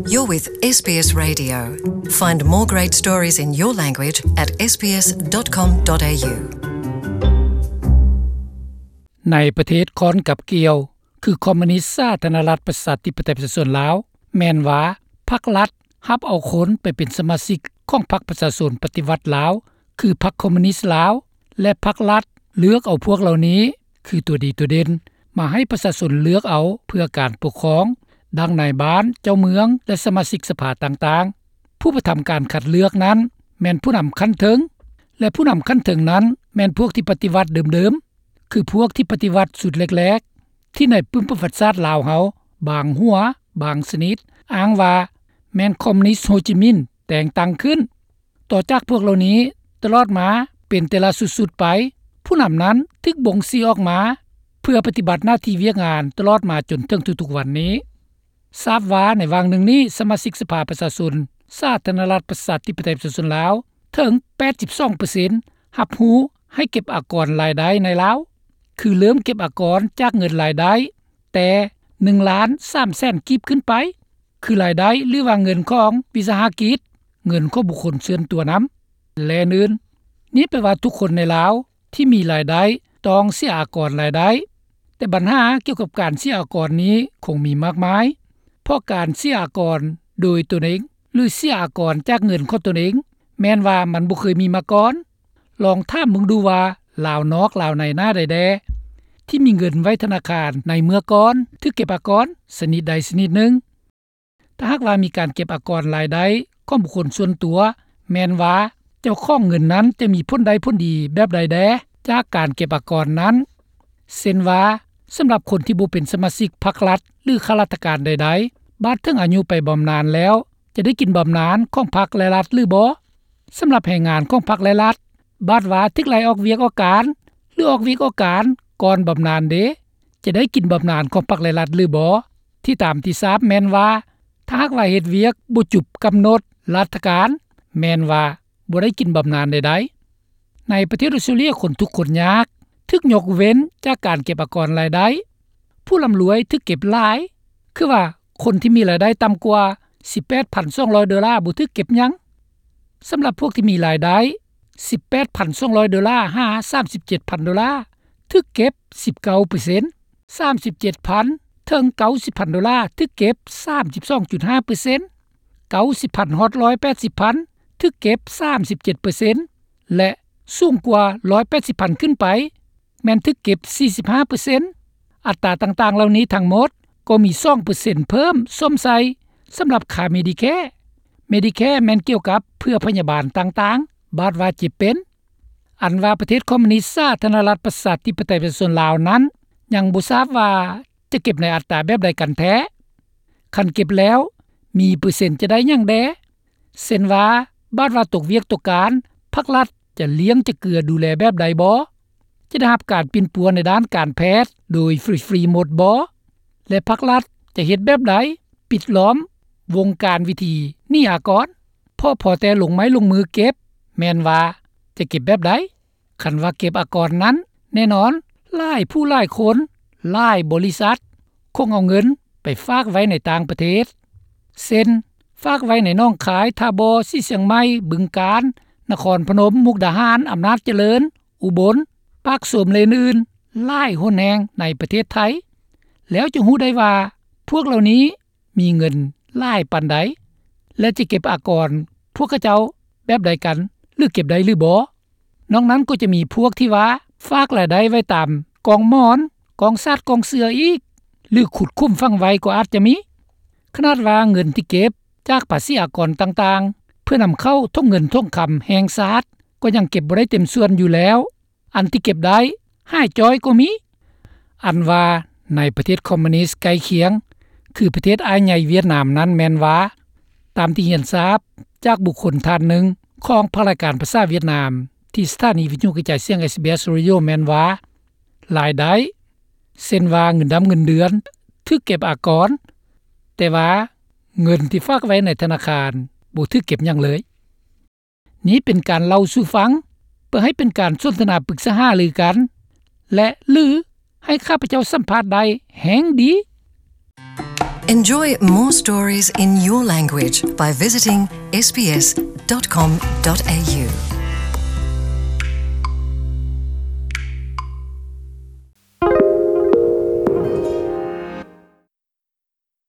You're with SBS Radio. Find more great stories in your language at sbs.com.au. ໃນປະເທດຄ້ອນກັບກ່ຽວ ຄືຄອມມູນິດສາທາລະນະລັດ ປະຊາທິປະໄຕ ປະຊາຊົນລາວ ແມ່ນວ່າພັກລັດຮັບເອົາຄົນໄປເປັນສະມາຊິກຂອງພັກປະຊາຊົນປະຕິວັດລາວ ຄືພັກຄອມມູນິດລາວ ແລະ ພັກລັດເລືອກເອົາພວກເຫຼົ່ານີ້ ຄືຕົວດີຕົວເດັ່ນ ມາໃຫ້ປະຊາຊົນເລືອກເອົາເພື່ອການປົກຄອງ ດັ່ງນາຍບ້ານ, ເຈົ້າເມືອງ ແລະ ສະມາຊິກສະພາຕ່າງໆ. ຜູ້ປະທຳການຄັດເລືອກນັ້ນ ແມ່ນຜູ້ນຳຂັ້ນເທິງ ແລະ ຜູ້ນຳຂັ້ນເທິງນັ້ນ ແມ່ນພວກທີ່ປະຕິວັດເດີມໆ ຄືພວກທີ່ປະຕິວັດຊຸດແລກໆ ທີ່ໃນປຶ້ມປະຫວັດສາດລາວເຮົາ ບາງຫົວ ບາງຊະນິດ ອ້າງວ່າແມ່ນຄອມມູນິດໂຮຈິມິນ ແຕ່ງຕັ້ງຂຶ້ນ. ຕໍ່ຈາກພວກເຫຼົ່ານີ້ ຕະຫຼອດມາເປັນແຕ່ລະຊຸດໆໄປ, ຜູ້ນຳນັ້ນຖືກບົ່ງຊີ້ອອກມາ ເພື່ອປະຕິບັດໜ້າທີ່ວຽກງານຕະຫຼອດມາຈົນເຖິງທຸກໆວັນນີ້. ຊາບວ່າໃນຫວ່າງໜຶ່ງນີ້ ສະມາຊິກສະພາປະຊາຊົນ ສາທາລະນະລັດ ປະຊາທິປະໄຕ ປະຊາຊົນລາວ ເຖິງແປດສິບສອງເປີເຊັນ ຮັບຮູ້ໃຫ້ເກັບອາກອນລາຍໄດ້ໃນລາວ ຄືເລີ່ມເກັບອາກອນຈາກເງິນລາຍໄດ້ ແຕ່ໜຶ່ງລ້ານສາມແສນກີບຂຶ້ນໄປ ຄືລາຍໄດ້ ຫຼືວ່າເງິນຂອງວິສາຫະກິດ, ເງິນຂອງບຸກຄົນສ່ວນຕົວນຳ ແລະ ອື່ນໆ. ນີ້ແປວ່າທຸກຄົນໃນລາວທີ່ມີລາຍໄດ້ຕ້ອງເສຍອາກອນລາຍໄດ້. ແຕ່ບັນຫາກ່ຽວກັບການເສຍອາກອນນີ້ຄົງມີມາກມາຍ, ເພາະການເສຍອາກອນໂດຍຕົນເອງ ຫຼື ເສຍອາກອນຈາກເງິນຂອງຕົນເອງ ແມ່ນວ່າມັນບໍ່ເຄີຍມີມາກ່ອນ. ລອງຖາມເບິ່ງດູວ່າລາວນອກລາວໃນໜ້າໃດແດ່ ທີ່ມີເງິນໄວ້ທະນາຄານໃນເມື່ອກ່ອນຖືກເກັບອາກອນຊະນິດໃດຊະນິດໜຶ່ງ. ຖ້າຫາກວ່າມີການເກັບອາກອນລາຍໄດ້ຂອງບຸກຄົນສ່ວນຕົວ ແມ່ນວ່າເຈົ້າຂອງເງິນນັ້ນຈະມີຜົນໄດ້ຜົນດີແບບໃດແດ່ຈາກການເກັບອາກອນນັ້ນ. ເຊັ່ນວ່າ ສຳລັບຄົນທີ່ບໍ່ເປັນສະມາຊິກພັກລັດ ຫຼື ຂ້າລາຊະການໃດໆ ບາດເຖິງອາຍຸໄປບຳນານແລ້ວ ຈະໄດ້ກິນບຳນານຂອງພັກ ແລະ ລັດ ຫຼື ບໍ່? ສຳລັບແຮງງານຂອງພັກ ແລະ ລັດ ບາດວ່າຖືກໄລ່ອອກວຽກອອກການ ຫຼື ອອກວຽກອອກການກ່ອນບຳນານເດ ຈະໄດ້ກິນບຳນານຂອງພັກ ແລະ ລັດ ຫຼື ບໍ່? ທີ່ຕາມທີ່ຊາບແມ່ນວ່າ ຖ້າຫາກວ່າເຮັດວຽກບໍ່ຈຸບກຳນົດລັດຖະການ ແມ່ນວ່າບໍ່ໄດ້ກິນບຳນານໃດໆ. ໃນປະເທດອົດສະຕຣາເລຍ ຄົນທຸກຄົນຍາກຖືກຍົກເວັ້ນຈາກການເກັບອາກອນລາຍໄດ້. ຜູ້ລ່ຳລວຍຖືກເກັບຫຼາຍ ຄືວ່າຄົນທີ່ມີລາຍໄດ້ຕ່ຳກວ່າສິບແປດພັນສອງຮ້ອຍໂດລາບໍ່ຖືກເກັບຫຍັງ. ສຳລັບພວກທີ່ມີລາຍໄດ້ສິບແປດພັນສອງຮ້ອຍໂດລາ ຫາ ສາມສິບເຈັດພັນໂດລາ ຖືກເກັບສິບເກົ້າເປີເຊັນ, ສາມສິບເຈັດພັນເຖິງເກົ້າສິບພັນໂດລາ ຖືກເກັບສາມສິບສອງຈຸດຫ້າເປີເຊັນ, ເກົ້າສິບພັນຮອດຮ້ອຍແປດສິບພັນ ຖືກເກັບສາມສິບເຈັດເປີເຊັນ ແລະ ສູງກວ່າຮ້ອຍແປດສິບພັນຂຶ້ນໄປ ແມ່ນຖືກເກັບສີ່ສິບຫ້າເປີເຊັນ. ອັດຕາຕ່າງໆເຫຼົ່ານີ້ທັງໝົດກໍມີສອງເປີເຊັນເພີ່ມສົມໃສ່ສຳລັບຄ່າ Medicare. Medicare ແມ່ນກ່ຽວກັບເພື່ອພະຍາບານຕ່າງໆ ບາດວ່າເຈັບເປັນ. ອັນວ່າປະເທດຄອມມູນິດສາທາລະນະລັດ ປະຊາທິປະໄຕ ປະຊາຊົນລາວນັ້ນ ຍັງບໍ່ຊາບວ່າຈະເກັບໃນອັດຕາແບບໃດກັນແທ້. ຄັນເກັບແລ້ວ ມີເປີເຊັນຈະໄດ້ຫຍັງແດ່? ເຊັ່ນວ່າ ບາດວ່າຕົກວຽກຕົກການ ພັກລັດຈະລ້ຽງຈະເກືອດູແລແບບໃດບໍ? ຈະໄດ້ຮັບການປິ່ນປົວໃນດ້ານການແພດໂດຍຟຣີໆໝົດບໍ? ແລະ ພັກລັດຈະເຮັດແບບໃດປິດລ້ອມວົງການວິທີໜີອາກອນ? ເພາະພໍແຕ່ລົງໄມ້ລົງມືເກັບ ແມ່ນວ່າຈະເກັບແບບໃດ? ຄັນວ່າເກັບອາກອນນັ້ນ ແນ່ນອນ ຫຼາຍຜູ້ຫຼາຍຄົນ ຫຼາຍບໍລິສັດ ຄົງເອົາເງິນໄປຝາກໄວ້ໃນຕ່າງປະເທດ ເຊັ່ນ ຝາກໄວ້ໃນໜອງຄາຍ, ທ່າບໍ່, ສີຊຽງໃໝ່, ບຶງການ, ນະຄອນພະນົມ, ມຸກດາຫານ, ອຳນາດຈະເລີນ, ອຸບົນ, ປາກຊົມ ແລະ ອື່ນໆ ຫຼາຍຫົນແຫ່ງໃນປະເທດໄທ. ແລ້ວຈະຮູ້ໄດ້ວ່າພວກເຫຼົ່ານີ້ ມີເງິນຫຼາຍປານໃດ ແລະ ຈະເກັບອາກອນພວກເຂົາເຈົ້າແບບໃດກັນ ຫຼື ເກັບໄດ້ຫຼືບໍ່? ນອກນັ້ນກໍຈະມີພວກທີ່ວ່າຝາກລາຍໄດ້ໄວ້ຕາມກອງໝອນ, ກອງສາດ, ກອງເສືອອີກ ຫຼື ຂຸດຂຸມຝັງໄວ້ກໍອາດຈະມີ. ຂະໜາດວ່າເງິນທີ່ເກັບຈາກພາສີອາກອນຕ່າງໆ ເພື່ອນຳເຂົ້າຖົງເງິນຖົງຄຳແຫ່ງຊາດ ກໍຍັງເກັບບໍ່ໄດ້ເຕັມສ່ວນຢູ່ແລ້ວ. ອັນທີ່ເກັບໄດ້ຫາຍຈ້ອຍກໍມີ. ອັນວ່າໃນປະເທດຄອມມູນິດໃກ້ຄຽງ ຄືປະເທດອ້າຍໃຫຍ່ຫວຽດນາມນັ້ນແມ່ນວ່າ ຕາມທີ່ຮຽນຊາບຈາກບຸກຄົນທ່ານໜຶ່ງຂອງພາກລາຍການພາສາຫວຽດນາມ ທີ່ສະຖານີວິທະຍຸກະຈາຍສຽງ SBS Radio ແມ່ນວ່າ ລາຍໄດ້ ເຊັ່ນວ່າເງິນດຳເງິນເດືອນ ຖືກເກັບອາກອນ, ແຕ່ວ່າເງິນທີ່ຝາກໄວ້ໃນທະນາຄານ ບໍ່ຖືກເກັບຫຍັງເລີຍ. ນີ້ເປັນການເລົ່າສູ່ຟັງ ເພື່ອໃຫ້ເປັນການສົນທະນາປຶກສາຫາລືກັນ ແລະ ຫຼື ໃຫ້ຂ້າພະເຈົ້າສຳພາດໄດ້ແຮ່ງດີ. Enjoy more stories in your language by visiting S B S dot com dot A U.